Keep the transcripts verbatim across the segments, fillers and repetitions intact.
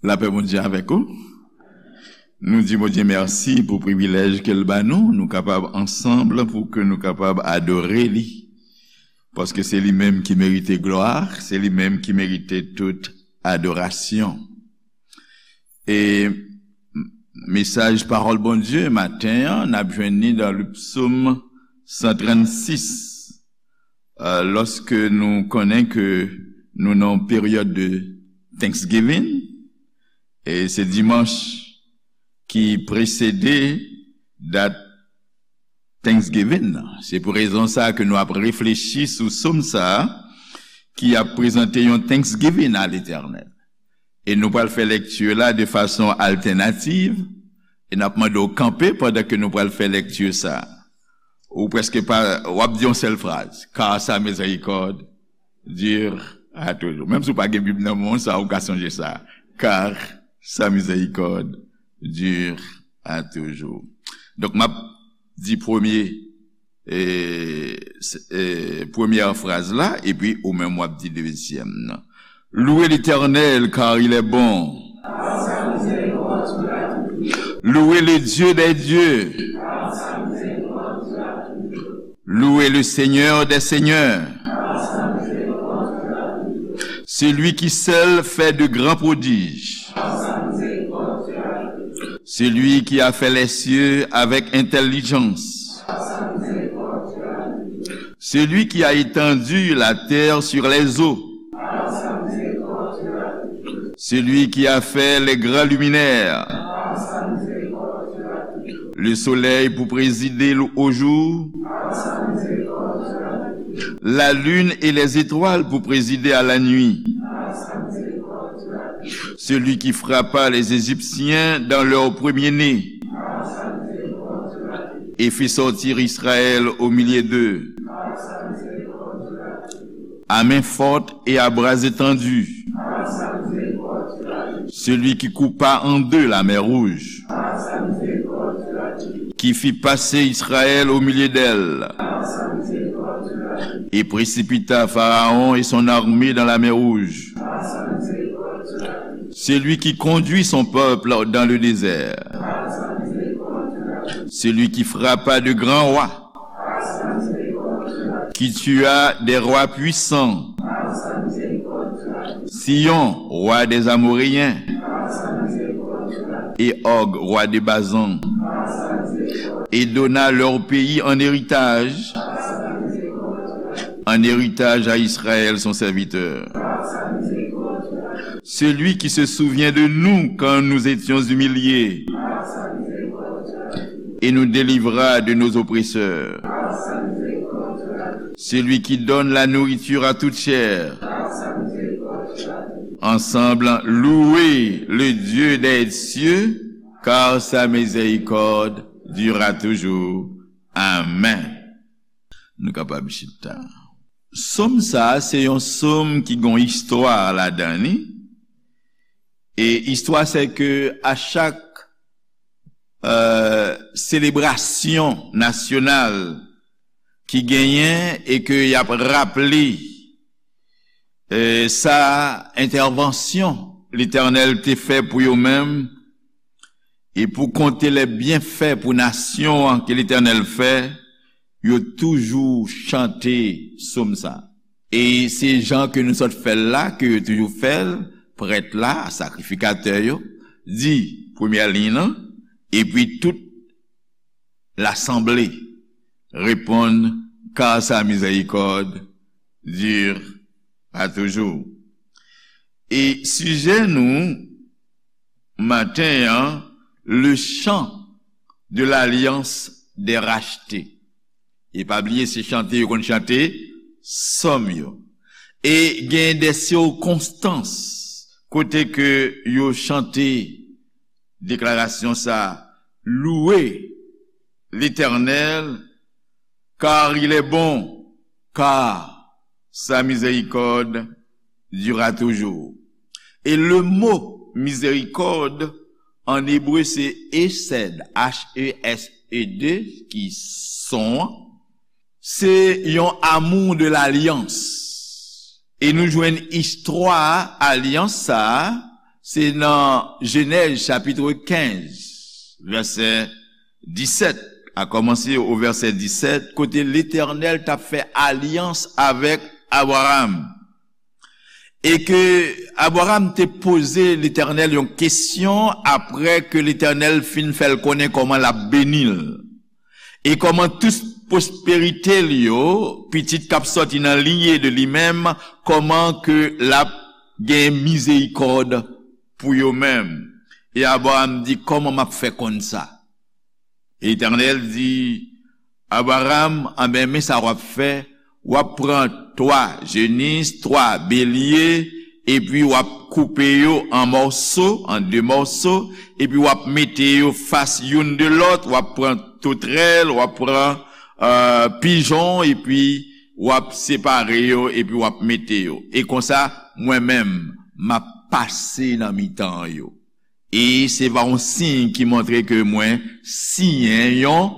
Lapè Bondye avèk ou. Nou di Bondye mèsi pou privilèj ke l ba nou, nou kapab ansanm, pou ke nou kapab adore li. Paske se li menm ki merite glwa, se li menm ki merite tout adorasyon. E mesaj pawòl Bondye maten an, n ap jwenn li nan le psaume cent trente-six. Euh, lòske nou konnen ke nou nan yon peryòd de Thanksgiving, e se dimanch ki presede dat Thanksgiving nan. Se pou rezon sa ke nou ap reflechi sou sòm sa a ki ap prezante yon Thanksgiving a Letènèl. E nou pral fè lekti la de fason altènativ, e n ap mande w kanpe pandan ke nou pral fè lekti sa. Ou prèske pa, w ap di yon sèl fraz, car sa miséricorde dure à toujours. Menm si w pa gen Bib nan men w, sa ou ka sonje sa. Car sa miséricorde dure à toujours. Donk, m ap di premye, e, s- e, premyè fraz la, epi ou menm w ap di dezyèm nan. Louez l'Éternel, car il est bon. Louez le Dieu des dieux. Louez le Seigneur des seigneurs. Celui qui seul fait de grands prodiges. Celui qui a fait les cieux avec intelligence. Celui qui a étendu la terre sur les eaux. Celui qui a fait les grands luminaires. Le soleil pour présider au jour. La lune et les étoiles pour présider à la nuit. Celui qui frappa les Égyptiens dans leur premier-né et fit sortir Israël au milieu d'eux. À main forte et à bras étendus. Celui qui coupa en deux la mer Rouge, qui fit passer Israël au milieu d'elle, et précipita Pharaon et son armée dans la mer Rouge. Celui qui conduit son peuple dans le désert. Celui qui frappa de grands rois, qui tua des rois puissants, Sihon, roi des Amoréens, et Og, roi de Basan, et donna leur pays en héritage, en héritage à Israël, son serviteur. Celui qui se souvient de nous quand nous étions humiliés et nous délivra de nos oppresseurs. Celui qui donne la nourriture à toute chair. Ensemble, louez le Dieu des cieux, car sa miséricorde durera toujours. Amen. Nou kapab chita. Sòm sa a, se yon sòm ki gon istwa ladan li. E istwa se ke a chak, euh, selebrasyon nasyonal ki genyen e ke y ap raple, euh, sa entèvansyon Letènèl te fè pou yo menm, e pou konte lè byenfè pou nasyon an ke Letènèl fè, yo toujou chante sòm sa. E se jan ke nou sot fè l la, ke yo toujou fè l, prèt la, sakrifikatè yo, di premyè liy lan, epi tout lasanble reponn, car sa miséricorde dure à toujours. E sijè nou maten an, le chant de l'alliance des rachetés. E pa bliye, se chante yo konn chante sòm yo. E gen de sikonstans kote ke yo chante deklarasyon sa, louez l'Éternel, car il est bon, car sa miséricorde durera toujours. E le mo mizerikòd an ebre se hesed, H E S E D, ki son an. Se yon amour de l'alliance. E nou jwenn istwa alyans sa a, Se nan Jenèz chapit kenz, vèsè disèt, a kòmanse o vèsè disèt, kote Letènèl t ap fè alyans avèk Abraram. E ke Abraram te poze Letènèl yon kesyon apre ke Letènèl fin fè l konnen kòman l ap beni l. E kòman tout pwosperite l yo, pitit k ap sòti nan linye de li menm, kòman ke l ap gen mizerikòd pou yo menm. E Abraram di, "Kòman m ap fè konn sa?" Letènèl di, "Abraram, anben, men sa w ap fè, w ap pran twa jenis, twa belye, epi w ap koupe yo an mòso, an de mòso, epi w ap mete yo fas youn de lòt, w ap pran totrèl, w ap pran, euh, pijon, epi w ap separe yo, epi w ap mete yo. E konsa, mwen menm, m ap pase nan mitan yo. E se va yon siy ki montre ke mwen siyen yon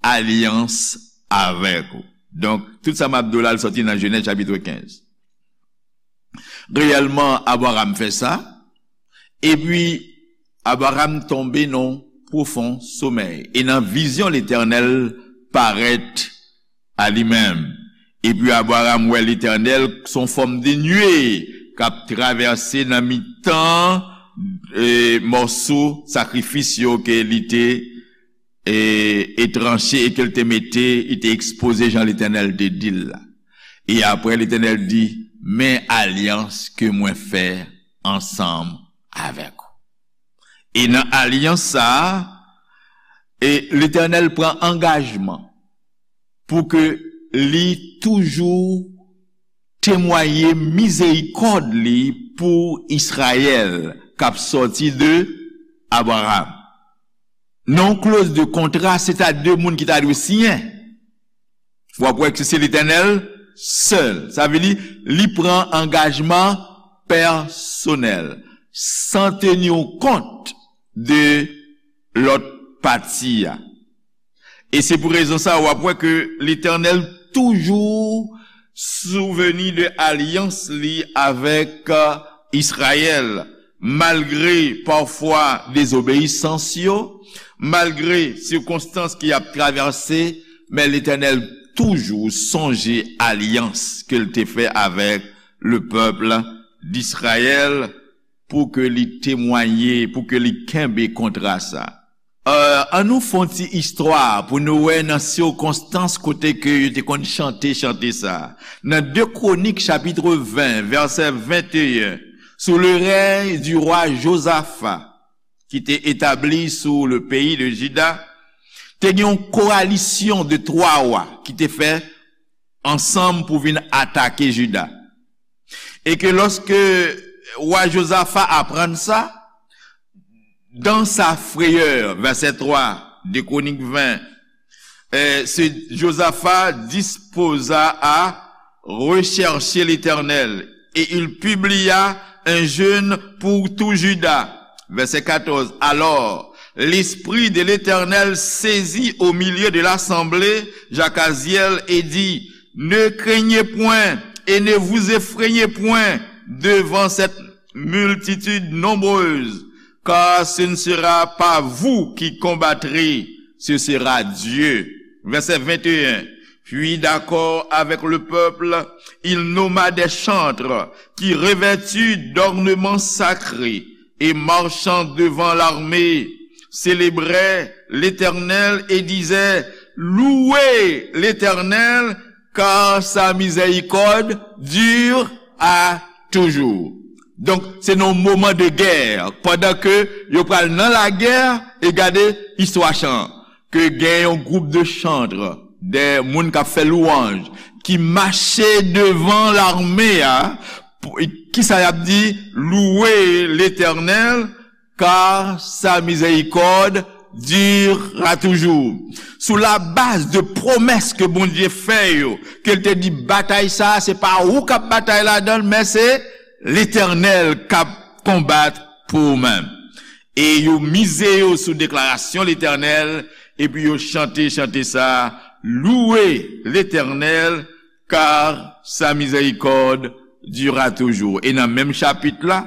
alyans avèk ou." Donk, tout sa m ap di w la, l sòti nan Jenèz chapit kenz. Reyèlman, Abraram fè sa, epi Abraram tonbe nan pwofon somèy. E nan vizyon, Letènèl parèt a li menm. Epi Abraram wè Letènèl son fòm de nwe k ap travèse nan mitan, e, mòso sakrifis yo ke li te, e, e tranche e ke l te mete, li te ekspoze jan Letènèl te di l la. E apre, Letènèl di, "Men alyans ke mwen fè ansanm avèk ou." E nan alyans sa a, e Letènèl pran angajman pou ke li toujou temwaye mizerikòd li pou Izrayèl k ap sòti de Abraram. Nan yon kloz de kontra, se ta de moun ki ta dwe siyen. W ap wè ke se Letènèl sèl. Sa vle di, li pran angajman pèsonèl, san tenir kont de lòt pati a. E se pou rezon sa, w ap wè ke Letènèl toujou souvni de alyans li avèk, euh, Izrayèl, malgre pafwa dezobeyisans yo, malgre sikonstans ki ap travèse, men Letènèl toujou sonje alyans ke l te fè avèk le peuple d'Israël pou ke li temwaye, pou ke li kenbe kontra sa. Euh, ann nou fè yon ti istwa pou nou wè nan sikonstans kote ke yo te konn chante chante sa. Nan de Kwonik chapit ven, vèsè venteyen, sou le rèy di wa Jozafa, ki te etabli sou le peyi de Jida, te gen yon koalisyon de twa wa ki te fè ansanm pou vin atake Jida. E ke lòske wa Jozafa aprann sa, dans sa frayeur, vèsè twa, de Kwonik ven, euh, se Jozafa dispoza a rechercher l'Éternel, et il publia un jeûne pour tout Juda. Verset quatorze. Alors, l'Esprit de l'Éternel saisit au milieu de l'assemblée Jahaziel et dit, Ne craignez point et ne vous effrayez point devant cette multitude nombreuse, car ce ne sera pas vous qui combattrez, ce sera Dieu. Verset vingt et un. Puis, d'accord avec le peuple, il nomma des chantres qui, revêtus d'ornements sacrés et marchant devant l'armée, célébraient l'Éternel et disaient, Louez l'Éternel, car sa miséricorde dure à toujours. Donk, se nan yon moman de gè, pandan ke yo pral nan lagè, e gade istwa chan, ke gen yon gwoup de chantre, de moun k ap fè lwanj, ki mache devan lame a, pou, kisa y ap di? Louez l'Éternel, car sa miséricorde durera toujours. Sou la baz de pwomès ke Bondye fè yo, ke l te di batay sa, se pa ou k ap batay ladan l, men se Letènèl k ap konbat pou ou menm. E yo mize yo sou deklarasyon Letènèl, epi yo chante chante sa, Louez l'Éternel, car sa miséricorde durera toujours. E nan menm chapit la,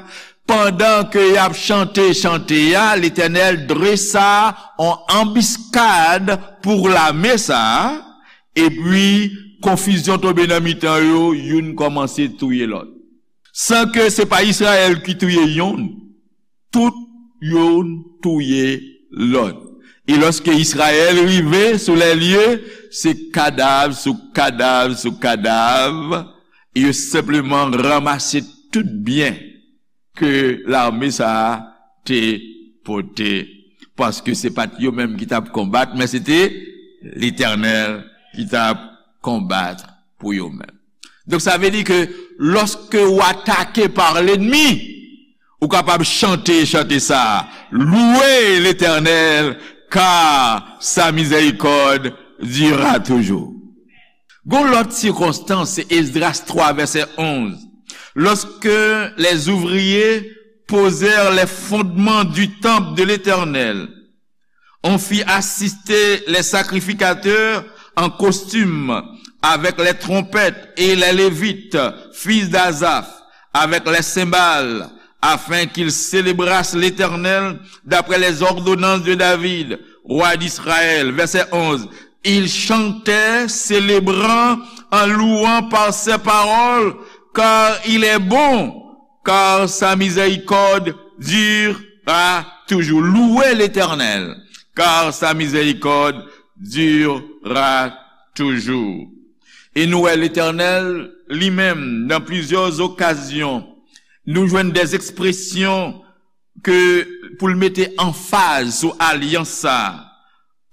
Pandan ke y ap chante chante a, Letènèl dresa yon anbiskad pou lame sa a, epi konfizyon tonbe nan mitan yo, youn kòmanse touye lòt. San ke se pa Izrayèl ki touye youn, tout youn touye lòt. E lòske Izrayèl rive sou lè lye, se kadav sou kadav sou kadav, yo senpleman ranmase tout byen ke lame sa a te pote. Paske se pa t yo menm ki t ap konbat, men se te Letènèl ki t ap konbat pou yo menm. Donk, sa vle di ke lòske w atake pa lènmi, ou kapab chante chante sa a, Louez l'Éternel, car sa miséricorde durera toujours. Gon lòt sikonstans, se Esdras twa, vèsè onz. Lorsque les ouvriers posèrent les fondements du temple de l'Éternel, on fit assister les sacrificateurs en costume, avec les trompettes, et les Lévites, fils d'Asaph, avec les cymbales, afin qu'ils célébrassent l'Éternel d'après les ordonnances de David, roi d'Israël. Verset onze. Ils chantaient, célébrant, en louant par ces paroles, car il est bon, car sa miséricorde durera toujours. Louez l'Éternel, car sa miséricorde durera toujours. E nou wè Letènèl, li menm, nan plizyè okazyon, nou jwenn des expressions ke pou l mete anfaz sou alyans sa,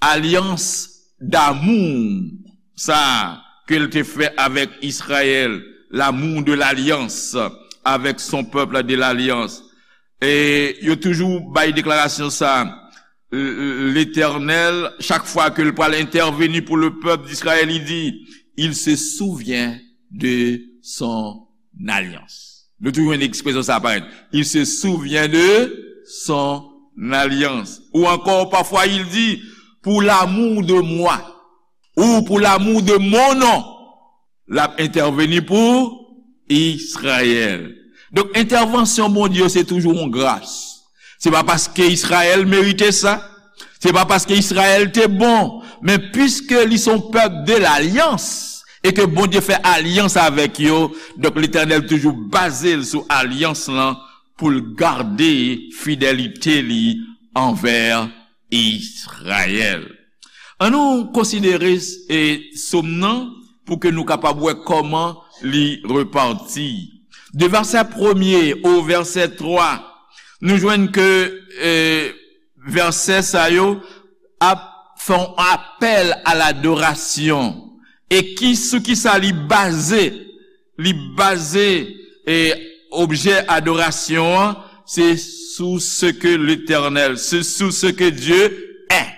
alyans damou sa ke l te fè avèk Izrayèl, l'amour de l'alliance avec son peuple de l'alliance. E yo toujou bay deklarasyon sa, Letènèl, chak fwa ke l pral entèveni pou le pèp d'Izrayèl, li di, il se souvient de son alliance. Nou toujou jwenn ekspresyon sa parèt. Il se souvient de son alliance. Ou encore, parfois, il dit, pour l'amour de moi, ou pour l'amour de mon nom, l ap entèveni pou Izrayèl. Donk, entèvansyon Bondye yo, se toujou yon gras. Se pa paske Izrayèl merite sa, se pa paske Izrayèl te bon, men piske li se yon pèp de lalyans, e ke Bondye fè alyans avèk yo, donk, Letènèl toujou baze l sou alyans lan pou l gade fidelite li anvè Izrayèl. Ann nou konsidere, e, sòm nan pou ke nou kapab wè kòman li repati. De vèsè premye o vèsè twa, nou jwenn ke, e, vèsè sa yo ap fè yon apèl a ladorasyon. E ki, sou ki sa li baze? Li baze, e, objè adorasyon an, se sou ce que l'Éternel, se sou ce que Dieu est.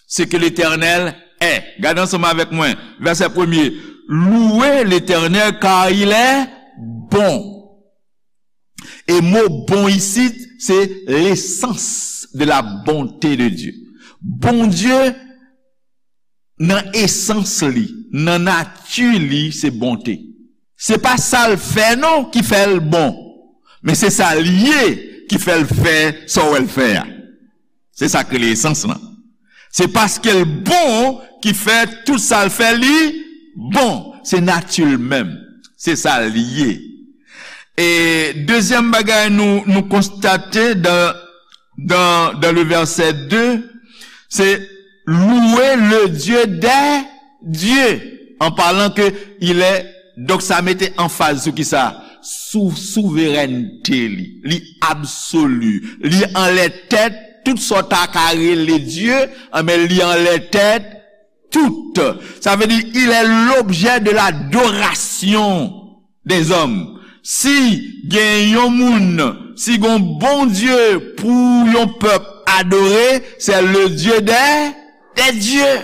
Ce que l'Éternel est. Gade ansanm avèk mwen, vèsè premye. Louez l'Éternel, car il est bon. E mo bon isit, se l'essence de la bonté de Dieu. Bondye, nan esans li, nan nati li, se bonte. Se pa sa l fè non ki fè l bon, men se sa l ye ki fè l fè sa w wè l fè a. Se sa k rele esans lan. Se paske l bon ki fè tout sa l fè li bon. Se nati l menm. Se sa l ye. E dezyèm bagay nou, nou konstate dan, dan, dan le vèsè de, se louer le Dieu des dieux, an palan ke il est, donk sa mete anfaz sou ki sa? Sou souverènte li, li absoli, li anlè tèt, tout sa w ta ka rele Dye, anben li anlè tèt tout. Sa vle di, il est l'objet de l'adoration des hommes. Si gen yon moun, si gen yon Bondye pou yon pèp adore, c'est le Dieu des, des dieux.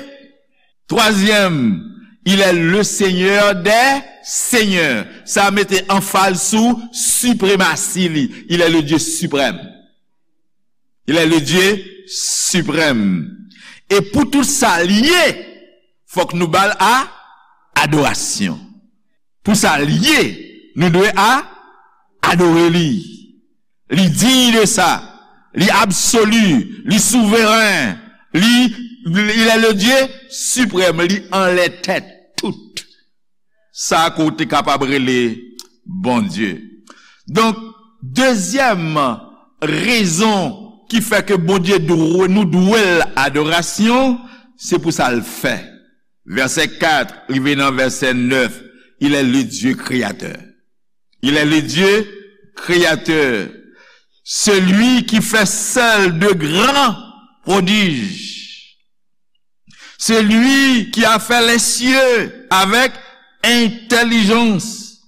Twazyèm, il est le Seigneur des seigneurs. Sa mete anfaz sou sipremasi li. Il est le Dieu suprême. Il est le Dieu suprême. E pou tout sa l ye, fòk nou ba l a, adorasyon. Pou sa l ye, nou dwe a, adore li. Li digne de sa. Li absolu. Li souveren. Li, il est le Dieu suprême. Li anlè tèt tout. Sa ke w te kapab rele Bondye. Donk, dezyèm rezon ki fè ke Bondye dwe, nou dwe l adorasyon, se pou sa l fè. Vèsè kat rive nan vèsè nèf, il est le Dieu créateur. Il est le Dieu créateur, celui qui fait seul de grands prodiges, celui qui a fait les cieux avec intelligence,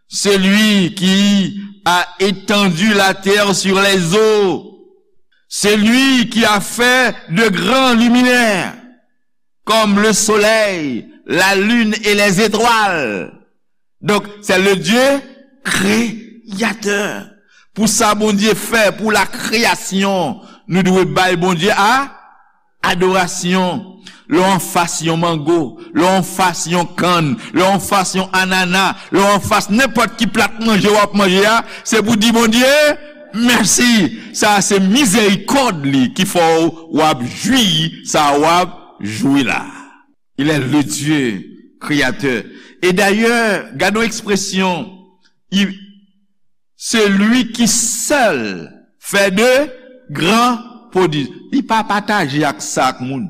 celui qui a étendu la terre sur les eaux, celui qui a fait de grands luminaires, comme le soleil, la lune et les étoiles. Donc, c'est le Dieu créateur. Pou sa Bondye fè, pou la kreyasyon, nou dwe bay Bondye a adorasyon. Lè w anfas yon mango, lè w anfas yon kann, lè w anfas yon anana, lè w anfas nenpòt ki plat manje w ap manje a, se pou di Bondye mèsi. Sa a se mizerikòd li ki fè w w ap jwi sa w ap jwi la. Il est le Dieu créateur. E dayè, gade yon ekspresyon, il, celui qui seul fait de grands prodiges. Li pa pataje ak sa ak moun.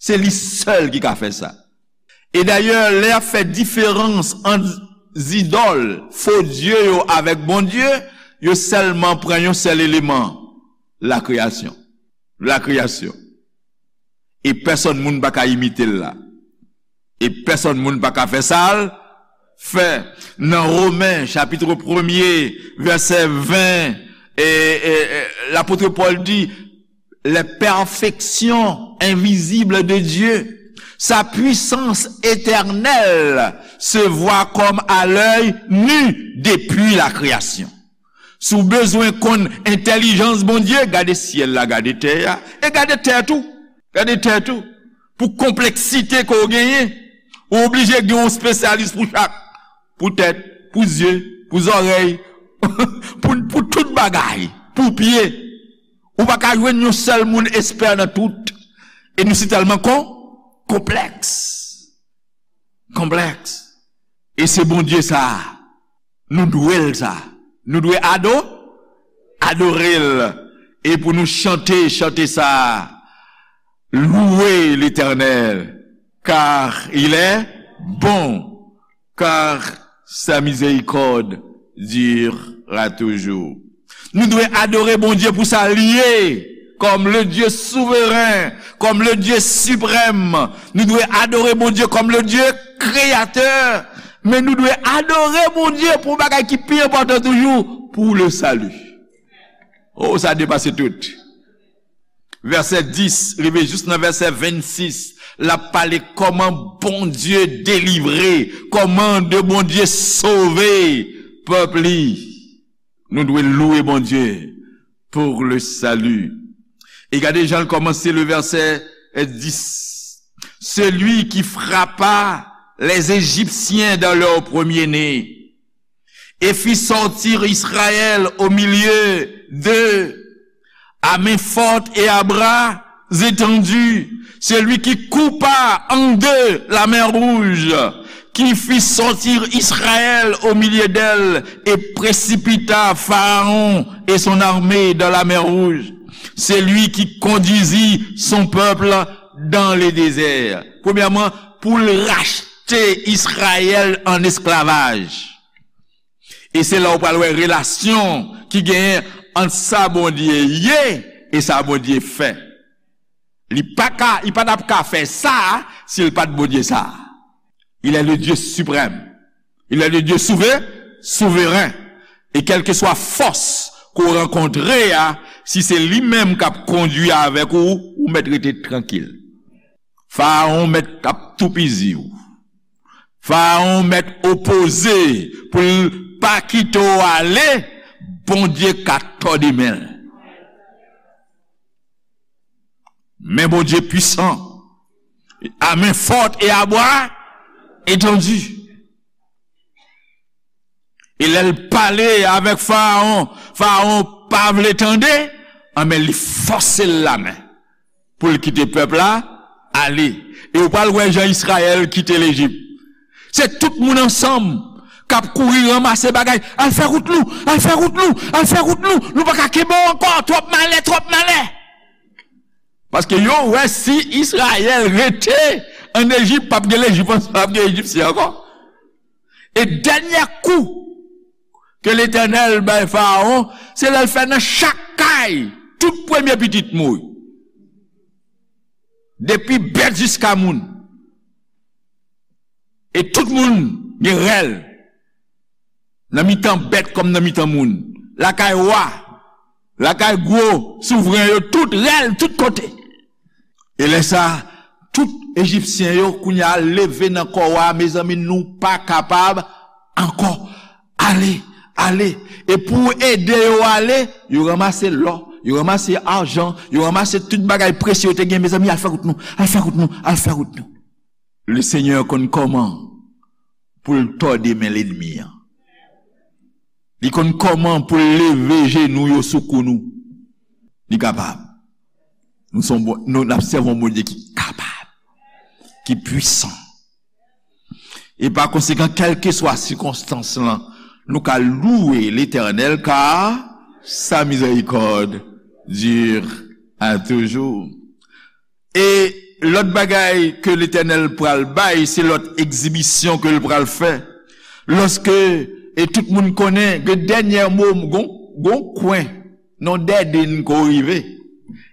Se li sèl ki ka fè sa. E dayè, lè y ap fè diferans ant zidòl, fo dye yo avèk Bondye, yo sèlman pran yon sèl eleman, lakreyasyon. Lakreyasyon. E pèsonn moun pa ka imite l la. E pèsonn moun pa ka fè sa l fè. Nan Women, chapit premye, vèsè ven, e, e, e, lapot Pòl di, les perfections invisibles de Dieu, sa puissance éternelle se voit comme à l'œil nu depuis la création. Si w bezwen konn entèlijans Bondye, gade syèl la, gade tè a, e gade tè tou. Gade tè tou. Pou konpleksite ke w genyen, ou oblije gen yon espesyalis pou chak. Pou tèt, pou zye, pou zòrèy, pou, pou tout bagay, pou pye. Ou pa ka jwenn yon sèl moun espè nan tout. E nou si tèlman kon, konplèks. Konplèks. E se Bondye sa a. Nou dwe l sa. Nou dwe ado, adore l. E pou nou chante, chante sa. Louez l'Éternel, car il est bon, car sa miséricorde durera toujours. Nou dwe adore Bondye pou sa l ye, comme le Dieu souverain, comme le Dieu suprême. Nou dwe adore Bondye comme le Dieu créateur. Men nou dwe adore Bondye pou yon bagay ki pi enpòtan toujou, pour le salut. Oh, sa depase tout. Vèsè dis rive jis nan vèsè vennsis, l ap pale kòman Bondye delivre, kòman de Bondye sove pèp li. Nou dwe louwe Bondye pour le salut. E gade jan l kòmanse le vèsè dis. Celui qui frappa les Égyptiens dans leur premier-né et fit sortir Israël au milieu d'eux à main forte et à bras étendus, celui qui coupa en deux la mer Rouge, qui fit sortir Israël au milieu d'elle et précipita Pharaon et son armée dans la mer Rouge, celui qui conduisit son peuple dans le désert. Premyèman, pou l rachte Izrayèl an esklavaj. E se la w pral wè relasyon ki genyen ant sa Bondye ye e sa Bondye fè. Li pa ka, li pa t ap ka fè sa si l pa t Bondye sa. Il est le Dieu suprême. Il est le Dieu souve-, souverain. E kèlkeswa fòs ke w rankontre a, si se li menm k ap kondwi avèk ou, ou mèt rete trankil. Farawon mèt ap toupizi w. Farawon mèt opoze pou l pa kite w ale, Bondye ka tòde men l. Men Bondye pwisan, a men fòt e a bra etandi. E lè l pale avèk Farawon, Farawon pa vle tande, anben li fòse l lamen pou l kite pèp la ale. E w pral wè jan Izrayèl kite Lejip. Se tout moun ansanm k ap kouri ranmase bagay. Al fè wout nou, al fè wout nou, al fè wout nou. Nou pa ka kenbe w ankò, twòp malè, twòp malè. Paske yo wè si Izrayèl rete ann Ejip, p ap gen Lejip, p ap gen Ejipsyen ankò. E dènyè kou ke Letènèl bay Farawon, se lè l fè nan chak kay, tout premye pitit mouri. Depi bèt jiska moun. E tout moun gen rèl. Nan mitan bèt kòm nan mitan moun. Lakay wa, lakay gwo souvren yo, tout rèl, tout kote. E lè sa, tout Ejipsyen yo kounye a leve nan kò wa, mezanmi, nou pa kapab ankò. Ale, ale. E pou ede yo ale, yo ranmase lò, yo ranmase ajan, yo ranmase tout bagay presye yo te gen, mezanmi, al fè wout nou, al fè wout nou, al fè wout nou. Lesenyè konn kòman pou l tòde men lènmi an. Li konn kòman pou l leve jenou yo sou kou nou. Li kapab. Nou se yon Bon-, nou, n ap sèvi yon Bondye ki kapab, ki pwisan. E pa konsekan, kèlkeswa sikonstans lan, nou ka louwe Letènèl, car sa miséricorde dure à toujours. E lòt bagay ke Letènèl pral bay, se lòt egzibisyon ke l pral fè. Lòske, e tout moun konnen, gen dènyè mo, gon, gon kwen, nan dèden ke w rive.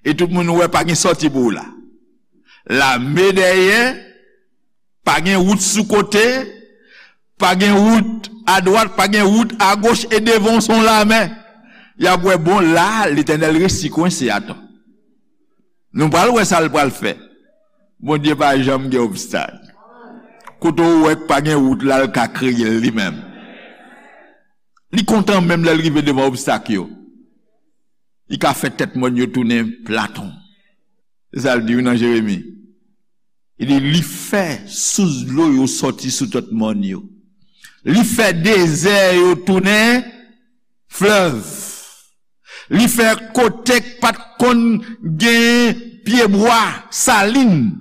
E tout moun wè pa gen sòti pou w la. Lame dèyè, pa gen wout sou kote, pa gen wout adwat, pa gen wout agoch, e devan w se yon lame. Y ap wè, bon, la, Letènèl resi kwense, atan. Nou pral wè sa l pral fè. Bondye pa janm gen obstak. Kote w wè k pa gen wout la, l ka kreye l li menm. Li kontan menm lè l rive devan obstak yo. Li ka fè tèt mòn yo tounen platon. Se sa l di wi nan Jeremi. Li di, li fè sous dlo yo sòti sou tèt mòn yo. Li fè dezè yo tounen flèv. Li fè kote k pa t konn gen pyebwa, salin,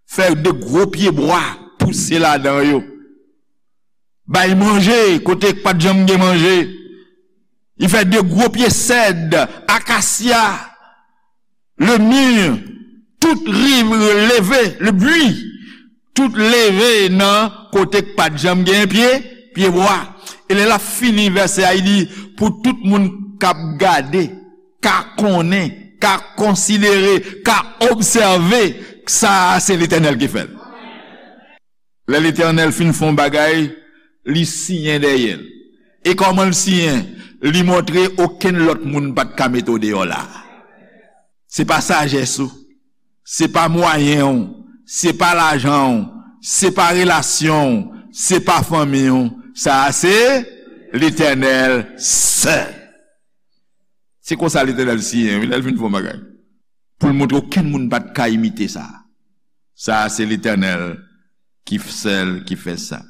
fè de gwo pyebwa pouse ladan yo. Bay manje kote k pa t janm gen manje. Li fè de gwo pye sèd, akasya, le mur, tout rive leve, le buis, tout leve nan kote k pa t janm gen pye, pyebwa. E lè l ap fini vèsè a, li di, pou tout moun k ap gade, ka konnen, ka konsidere, ka obsève, sa a se Letènèl ki fè l. Lè Letènèl fin fè yon bagay, li siyen dèyè l. E kòman l siyen? Li montre okenn lòt moun pa t ka mete w deyò la. Se pa sajès ou, se pa mwayen w, se pa lajan w, se pa relasyon w, se pa fanmi w. Sa a se Letènèl sèl. Se konsa Letènèl siyen, wi, lè l fin fè yon bagay. Pou l montre okenn moun pa t ka imite sa. Sa a se Letènèl ki f-, sèl ki fè sa.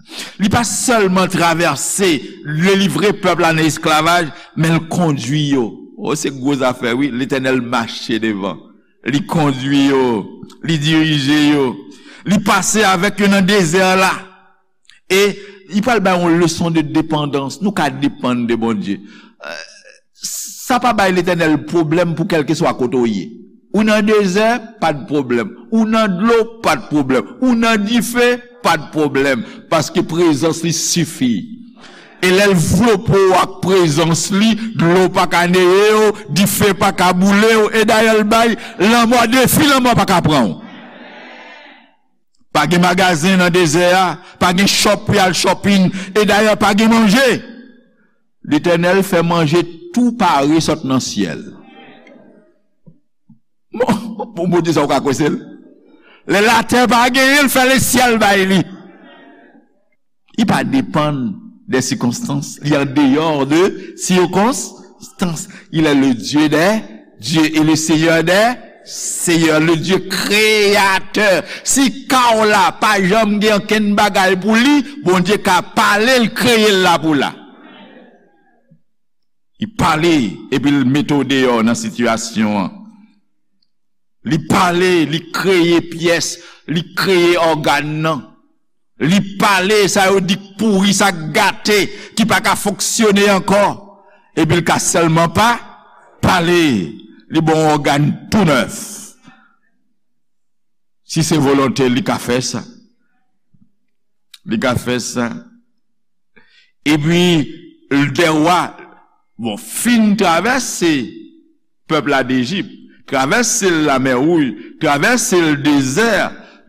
Li pa sèlman travèse, delivre pèp la nan esklavaj, men l kondui yo. O, se gwo zafè, wi. Letènèl mache devan. Li kondui yo. Li dirije yo. Li pase avèk yo nan dezè la. E li pral bay yon leson de depandans. Nou ka depann de Bondye. Eh, sa pa bay Letènèl pwoblèm pou kèlkeswa kote w ye. Ou nan dezè, pa t pwoblèm. Ou nan dlo, pa t pwoblèm. Ou nan dife, pa t pwoblèm. Paske prezans li sifi. E lè l vlope w ak prezans li, dlo pa ka neye w, dife pa ka boule w. E dayè l bay lanmò defi, lanmò pa ka pran w. Pa gen magazen nan dezè a, pa gen shop pou y al shopping, e dayè pa gen manje. Letènèl fè manje tou pare sot nan syèl. Bon, bon, Bondye sa w ka kwese l? Lè latè pa genyen, l fè lesyèl bay li. Li pa depann de sikonstans, li an deyò de sikonstans. Il est le Dieu des dieux et le Seigneur des Seyè, le Dye kreyatè. Si ka w la pa janm gen ankenn bagay pou li, Bondye ka pale l, kreye l la pou la. Li pale, epi l mete w deyò nan sitiyasyon an. Li pale, li kreye pyès, li kreye ògàn nan. Li pale, sa yo di k pouri, sa k gate, ki pa ka fonksyone ankò. Epi l ka sèlman pa pale. Li ba w yon ògàn tou nèf. Si se volonte, li ka fè sa. Li ka fè sa. Epi, de wa, bon, fin travèse pèp la d Ejip, travèse l Lamè Wouj, travèse l dezè.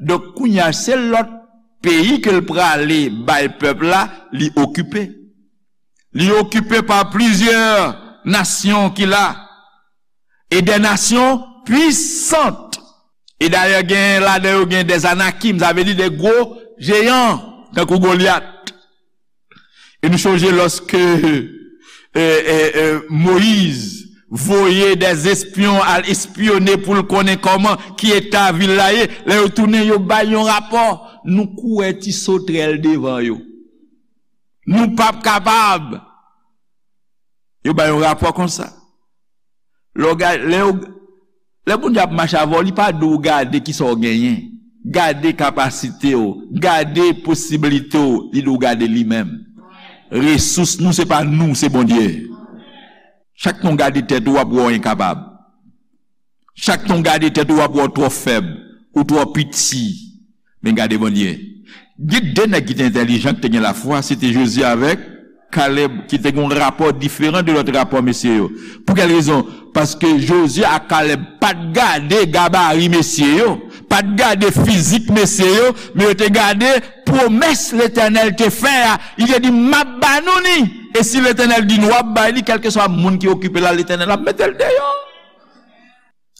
Donk, kounye a, se lòt peyi ke l prale bay pèp la, li okipe. Li okipe pa plizyè nasyon ki la. E de nasyon pwisant. E dayè, gen ladan yo gen de Anakim, sa vle di de gwo jeyan, tankou Golyat. E nou chonje lòske, e, e, e, Moyiz voye de espyon al espyone pou l konnen kòman, ki eta vil la ye. Lè yo tounen, yo bay yon rapò. Nou kouri ti sotrèl devan yo. Nou p ap kapab. Yo bay yon rapò konsa. Lè w ga-, lè yo, lè Bondye ap mache avè w, li pa di w gade kisa w genyen. Gade kapasite w, gade posiblite w, li di w gade li menm. Resous nou, se pa nou, se Bondye. Chak tan w gade tèt ou, w ap wè w enkapab. Chak tan w gade tèt ou, w ap wè w twò fèb, ou twò piti. Men gade Bondye. Gen de nèg ki te entèlijan, ki te gen lafwa, se te Jozye avèk Kalèb, ki te gen yon rapò diferan de lòt rapò mesye yo. Pou kèl rezon? Paske Jozye ak Kalèb pa t gade gabari mesye yo, pa t gade fizik mesye yo, men yo te gade pwomès Letènèl te fè a. Li te di, "M ap ba nou ni." E si Letènèl di nou ap bay li, kèlkeswa moun ki okipe la, Letènèl ap mete l deyò.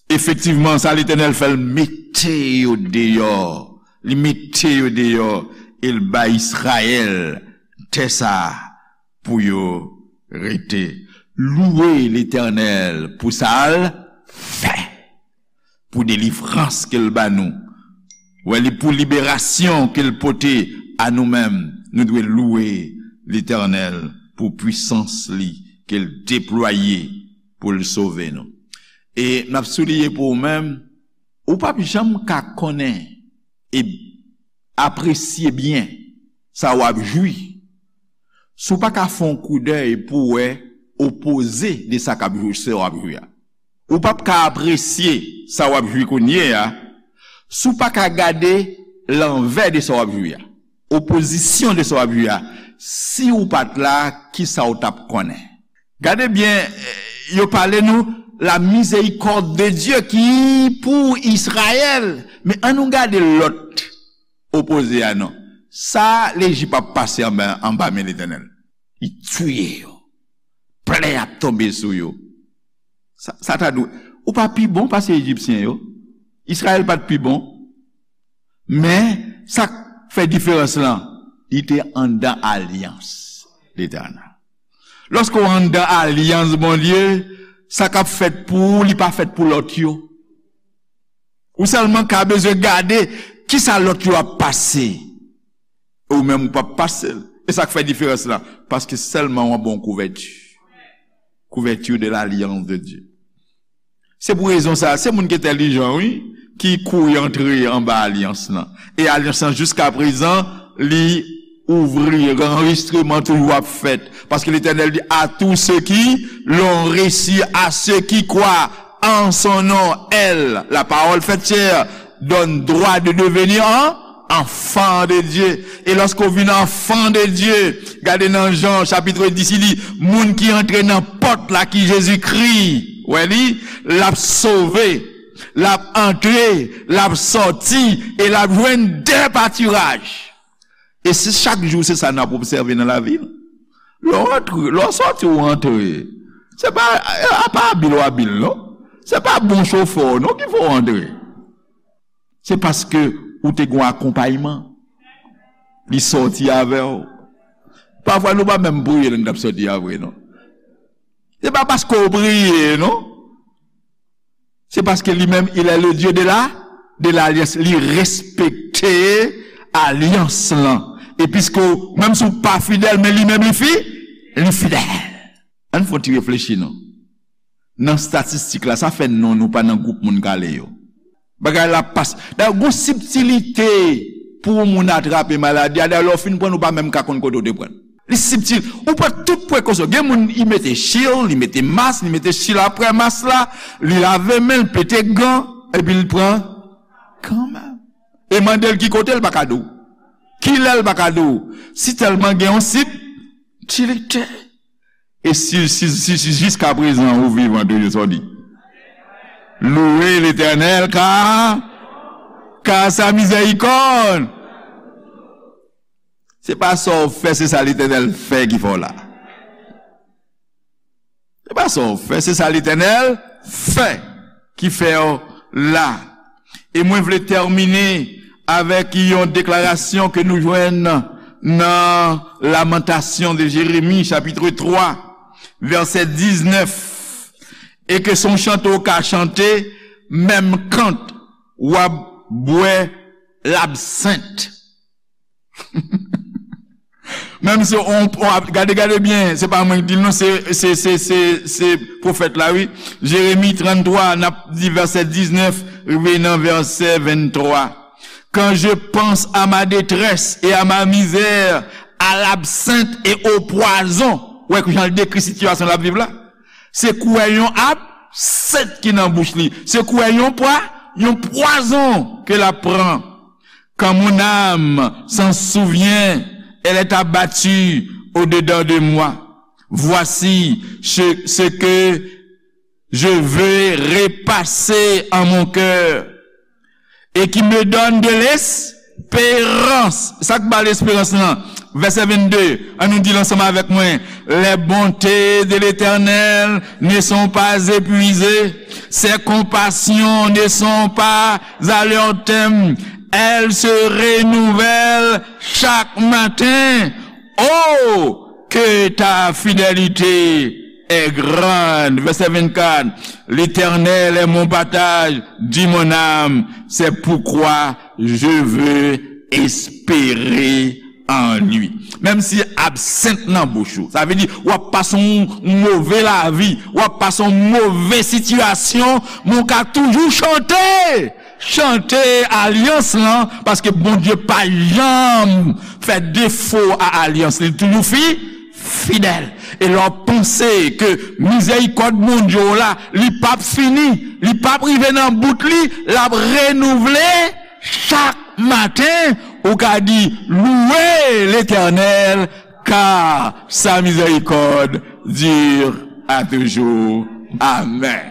Efektivman, sa Letènèl fè, l mete yo deyò. Li mete yo deyò e l bay Izrayèl tè sa a pou yo rete. Louwe Letènèl pou sa l fè, pou delivrans ke l ba nou. Wè, li pou liberasyon ke l pote a nou menm. Nou dwe louwe Letènèl pou pwisans li ke l deplwaye pou l sove nou. E n ap souliye pou ou menm, ou p ap janm ka konnen e apresye byen sa w ap jwi si w pa ka fè yon koudèy pou w wè opoze de sa k ap jwi, sa w ap jwi a. Ou p ap ka apresye sa w ap jwi kounye a si w pa ka gade lanvè de sa w ap jwi a, opozisyon de sa w ap jwi a. Si w pa t la, kisa w t ap konnen? Gade byen, eh, yo pale nou la miséricorde de Dieu ki pou Izrayèl. Men ann nou gade lòt opoze a non. Sa Lejip ap pase anba, anba men Letènèl. Li tiye yo. Plè ap tonbe sou yo. Sa, sa ta dwe. Ou pa pi bon pase Ejipsyen yo. Izrayèl pa t pi bon. Men, sa k fè diferans lan, li te anndan alyans Letènèl. Lòske w anndan alyans Bondye, sa k ap fèt pou ou, li pa fèt pou lòt yo. Ou sèlman ka bezwen gade kisa lòt yo ap pase. E ou menm ou p ap pase l. E sa k fè diferans lan, paske sèlman w anba yon kouvèti. Couverture de l'alliance de Dieu. Se pou rezon sa, se moun ki entèlijan, wi, ki kouri antre anba alyans lan. E alyans lan, jiska prezan, li ouvri, anrejistreman toujou ap fèt. Paske Letènèl di, "À tous ceux qui l'ont reçu, à ceux qui croient en son nom, elle, la parole faite chair, donne droit de devenir en enfants de Dieu." E lòske w vin enfant de Dieu, gade nan Jan chapit dis, li di, moun ki antre nan pòt la ki Jezikri, wè li, l ap sove, l ap antre, l ap sòti, e l ap jwenn de patiraj. E se chak jou, se sa n ap obsève nan lavi nou. Lè w antre, lè w sòti, w antre. Se pa, a pa abil w abil, non. Se pa bon chofè w, non, ki fè w antre. Se paske ou te gen akonpayman. Li sòti avè w. Pafwa, nou pa menm priye lè n t ap sòti a vre, non. Se pa paske w priye, non. Se paske li menm, il est le Dieu de la, de l'alliance. Li respekte alyans lan. E piske w, menm si w pa fidèl, men li menm li fi, li fidèl. Ann fè yon ti reflechi non. Nan statistik la, sa fè non nou pa nan gwoup moun k ale yo. Bagay la pas. Dayè, gon sibtilite pou yon moun atrape maladi a. Dayè, lè w fin pran l, ou pa menm ka konn kote w te pran l. Li sibtil. Ou pran tout prekosyon. Gen moun, li mete chil, li mete mas, li mete chil apre mas la, li lave men l, pete gan, epi l pran kanmenm. E mande l ki kote, l pa ka di w. Kilè, l pa ka di w. Si tèlman gen yon sibtilite. E si, si, si, si jiskaprezan ou vivan toujou, sa w di? Louez l'Éternel, car, car sa miséricorde. Se pa sa w fè, se sa Letènèl fè ki fè w la. Se pa sa w fè, se sa Letènèl fè ki fè w la. E mwen vle tèmine avèk yon deklarasyon ke nou jwenn nan Lamentation de Jérémie, chapitre trois, verset dix-neuf. E ke se yon chante w ka chante, menm kan w ap bwè labsent. Menm si on, on, gade, gade byen, se pa mwen ki di l non, se, se, se, se, se pwofèt la, wi. Jeremi tranntwa, n ap di vèsè diznèf, rive nan vèsè venntwa. Quand je pense à ma détresse et à ma misère, à l'absinthe et au poison. Ou wè jan l dekri sitiyasyon l ap viv la? Se kouwè yon absent ki nan bouch li. Se kouwè yon pwa, yon pwazon ke l ap pran. Quand mon âme s'en souvient, elle est abattue au-dedans de moi. Voici ce, ce que je veux repasser en mon cœur et qui me donne de l'espérance. Sa k ba l esperans lan? Vèsè vennde, ann nou di l ansanm avèk mwen. Les bontés de l'Éternel ne sont pas épuisées, ses compassions ne sont pas à leur terme, elles se renouvellent chaque matin. Oh, que ta fidélité est grande. Vèsè vennkat, L'Éternel est mon partage, dit mon âme, c'est pourquoi je veux espérer en lui. Menm si absent nan bouch ou, sa vle di w ap pase yon move lavi, w ap pase yon move sitiyasyon, men w ka toujou chante. Chante alyans lan, paske Bondye pa janm fè defo a alyans li, li toujou fi, fidèl. E lè w panse ke mizèrikòd Bondye w la, li p ap fini, li p ap rive nan bout li, l ap renouvle chak maten, ou ka di, Louez l'Éternel, car sa miséricorde dure à toujours. Amèn.